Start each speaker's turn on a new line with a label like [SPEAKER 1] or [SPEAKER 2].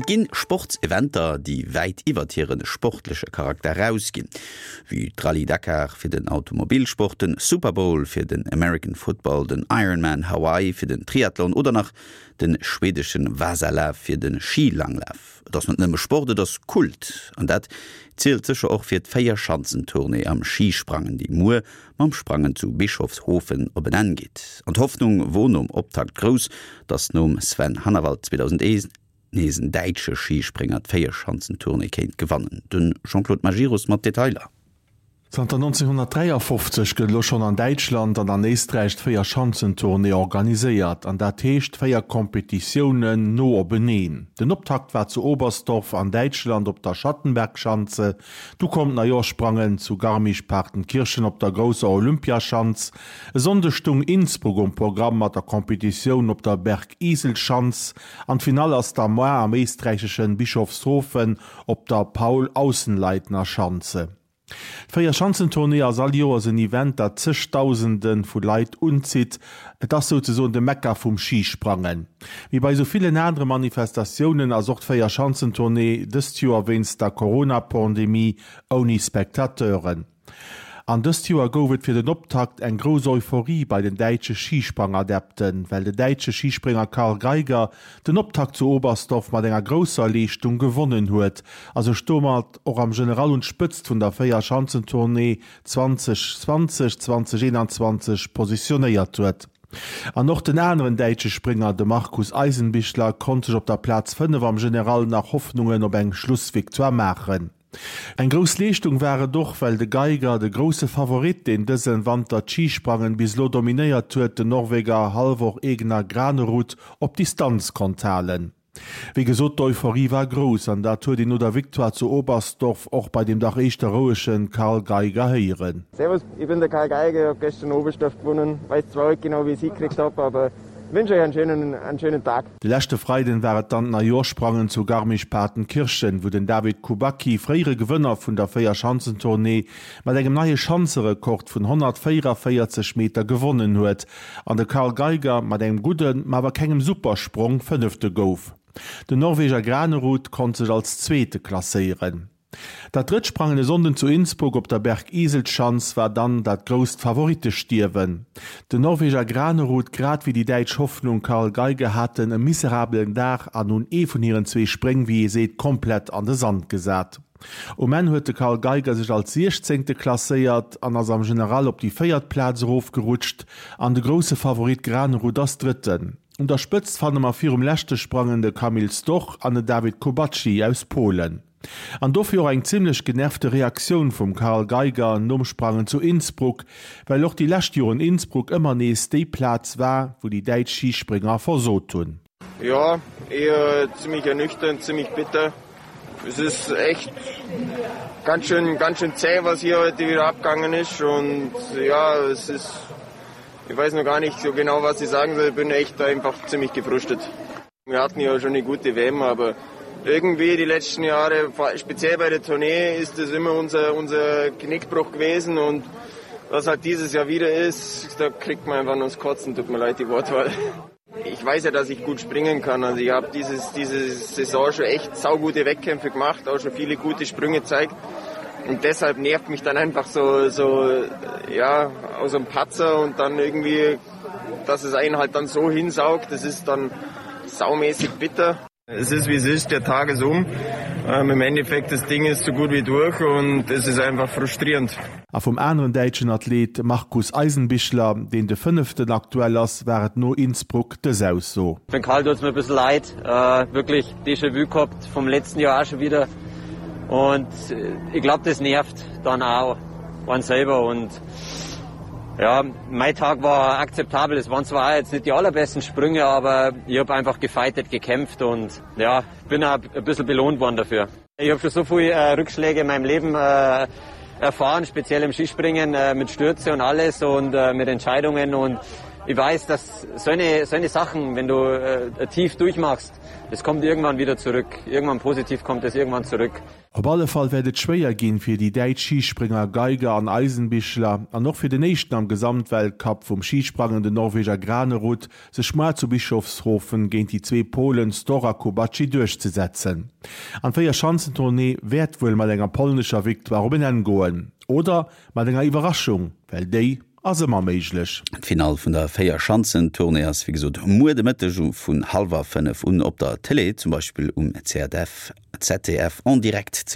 [SPEAKER 1] Et ginn Sportseventer, déi wäit iwwert hire sportleche Charakter erausginn, wéi d'Rallye Dakar fir den Automobilsport, den Super Bowl fir den American Football, den Ironman Hawaii fir den Triathlon oder nach de schwedeschen Vasalaf fir de Schilanglaf. Et ass net nëmme Sport, et ass Kult. An dat zielt sécher och fir d'Véierschanzentournée am Schisprangen, déi muer mam Sprangen zu Bischofshofen op en Enn geet. An d'Hoffnung wor nom Optakt grouss, datt nom Sven Hannawald 2001 nees en däitsche Schisprénger d'Véierschanzentournée kéint gewannen. De Jean-Claude Majerus mat Detailer.
[SPEAKER 2] Zanter 1953 gëtt elo schonn an Däitschland an an Éisträich d'Véierschanzentournée organiséiert, an dat heescht 4 Kompetitiounen no openeen. Den Optakt war zu Oberstdorf an Däitschland op der Schattenbergschanze, du koum d'Neijoerschsprangen zu Garmisch-Partenkirchen op der grousser Olympiaschanz. E Sonndeg stung Innsbruck um Programm mat der Kompetitioun op der Bergiselschanz an d'Finall ass da moar am éisträicheschen Bischofshofen op der Paul-Aussenleitner-Schanze. D'Véierschanzentournée ass all Joers en Event, dat zegdausende vu Leit unzitt. Et ass souzesoen de Mekka vum Schisprangen. Wéi bei sou villen anere Manifestatiounen ass och d'Véierschanzentournée dëst Joer wéinst der Corona-Pandemie ouni Spectateuren. An dëst Joer gouf et fir den Optakt eng grouss Euphorie bei den däitsche Schisprangadepten, well de däitsche Schisprénger Karl Geiger den Optakt zu Oberstdorf mat enger grousser Leeschtung gewonnen huet a sech domat och am General un d'Spëtzt vun der Véierschanzentournée 2020, 2021 positionéiert huet. An och den aneren däitsche Sprénger, de Markus Eisenbichler, konnt sech op der Plaz 5 am General nach Hoffnungen op eng Schlussvictoire maachen. Eng grouss Leeschtung war et och, well de Geiger, de grousse Favorit, deen dësen Wanter d'Schisprangen bis elo dominéiert huet, den Norweger Halvor Egner Granerud op Distanz konnt halen. Wéi gesot, d'Euphorie war grouss an dat huet een no der Victoire zu Oberstdorf och bei dem dach éischter rouege Karl Geiger héieren.
[SPEAKER 3] Servus, ich bin der Karl Geiger, ich hab gestern Oberstdorf gewonnen, weiß zwar nicht genau wie ich's hingekriegt hab, aber wünsch euch einen schönen, einen schönen Tag.
[SPEAKER 2] De leschte Freiden war et dann d'Neijoerschsprangen zu Garmisch-Partenkirchen, wou den David Kubacki, fréiere Gewënner vun der Véierschanzentournée, mat engem neie Schanzerekord vun 144 Meter gewonnen huet an de Karl Geiger mat engem gudden, ma awer kengem Supersprong Fënnefte gouf. Den Norweger Granerud konnt sech als Zweete klasséieren. Dat drëtt Sprangen e Sonnden zu Innsbruck op der Bergiselschanz war dann dat grousst Favorittestierwen. Den Norweger Granerud grad wéi déi däitsch Hoffnung Karl Geiger haten e miserabelen Dag an hunn ee vun hiren zwee Spréng, wéi ee seet, komplett an de Sand gesat. Um Enn huet de Karl Geiger sech als Siechzéngte klasséiert an ass am General op déi véiert Plaz erofgerutscht an de grousse Favorit Granerud ass Drëtten. Un der Spëtzt fanne mer virum leschte Sprangen de Kamil Stoch an den Dawid Kubacki aus Polen. An dofir och eng zimmlech genervte Reaktioun vum Karl Geiger nom Sprangen zu Innsbruck, well och déi lescht Joren Innsbruck ëmmer nees déi Plaz war, wou déi däitsch Schisprénger versot hunn.
[SPEAKER 3] Ja, eher ziemlich ernüchternd, ziemlich bitter. Es ist echt ganz schön, ganz schön zäh, was hier heute wieder abgegangen ist. Und ja, es ist, ich weiß noch gar nicht so genau, was ich sagen soll. Ich bin echt einfach ziemlich gefrustet. Wir hatten ja schon eine gute WM, aber irgendwie die letzten Jahre, speziell bei der Tournee, ist das immer unser, unser Knickbruch gewesen und was halt dieses Jahr wieder ist, da kriegt man einfach nur das Kotzen, tut mir leid die Wortwahl. Ich weiß ja, dass ich gut springen kann. Also ich habe dieses, diese Saison schon echt saugute Wettkämpfe gemacht, auch schon viele gute Sprünge gezeigt. Und deshalb nervt mich dann einfach so, so ja, aus einem Patzer und dann irgendwie, dass es einen halt dann so hinsaugt, das ist dann saumäßig bitter. Es ist wie es ist, der Tag ist um. Ähm, Im Endeffekt das Ding ist so gut wie durch und es ist einfach frustrierend.
[SPEAKER 2] A vum aneren däitschen Athlet Markus Eisenbichler, deen de fënneften aktuell ass, war et no Innsbruck dës Ausso.
[SPEAKER 4] Für den Karl tut's mir e bissl leid, äh, wirklich Déjà-vu gehabt vom letzten Jahr auch schon wieder und ich glaub das nervt dann auch einen selber und ja, mein Tag war akzeptabel. Es waren zwar auch jetzt nicht die allerbesten Sprünge, aber ich hab einfach gefightet, gekämpft und ja, bin auch e bissl belohnt worden dafür. Ich hab schon so viel äh, Rückschläge in meinem Leben äh, erfahren, speziell im Skispringen äh, mit Stürze und alles und äh, mit Entscheidungen und. Ich weiß, dass so eine, so eine Sachen, wenn du äh, tief durchmachst, es kommt irgendwann wieder zurück. Irgendwann positiv kommt es irgendwann zurück.
[SPEAKER 2] Op alle Fall wäert et schwéier ginn fir déi däitsch Schisprénger Geiger an Eisenbichler an och fir den éischten am Gesamtweltcup vum Schisprangen, den Norweger Granerud, sech moar zu Bischofshofen géint déi zwee Polen Stor a Kubacki duerchzesetzen. An d'Véierschanzentournée wäert wuel mat enger polnescher Victoire op en Enn goen. Oder mat enger Iwwerraschung, well déi ass ëmmer méiglech.
[SPEAKER 1] D'Finall vun der Véierschanzentournée ass wéi gesot muer de Mëtteg vun hallwer 5 un op der Tëlee, zum Beispill um ZDF, ZDF en direct ze gesinn.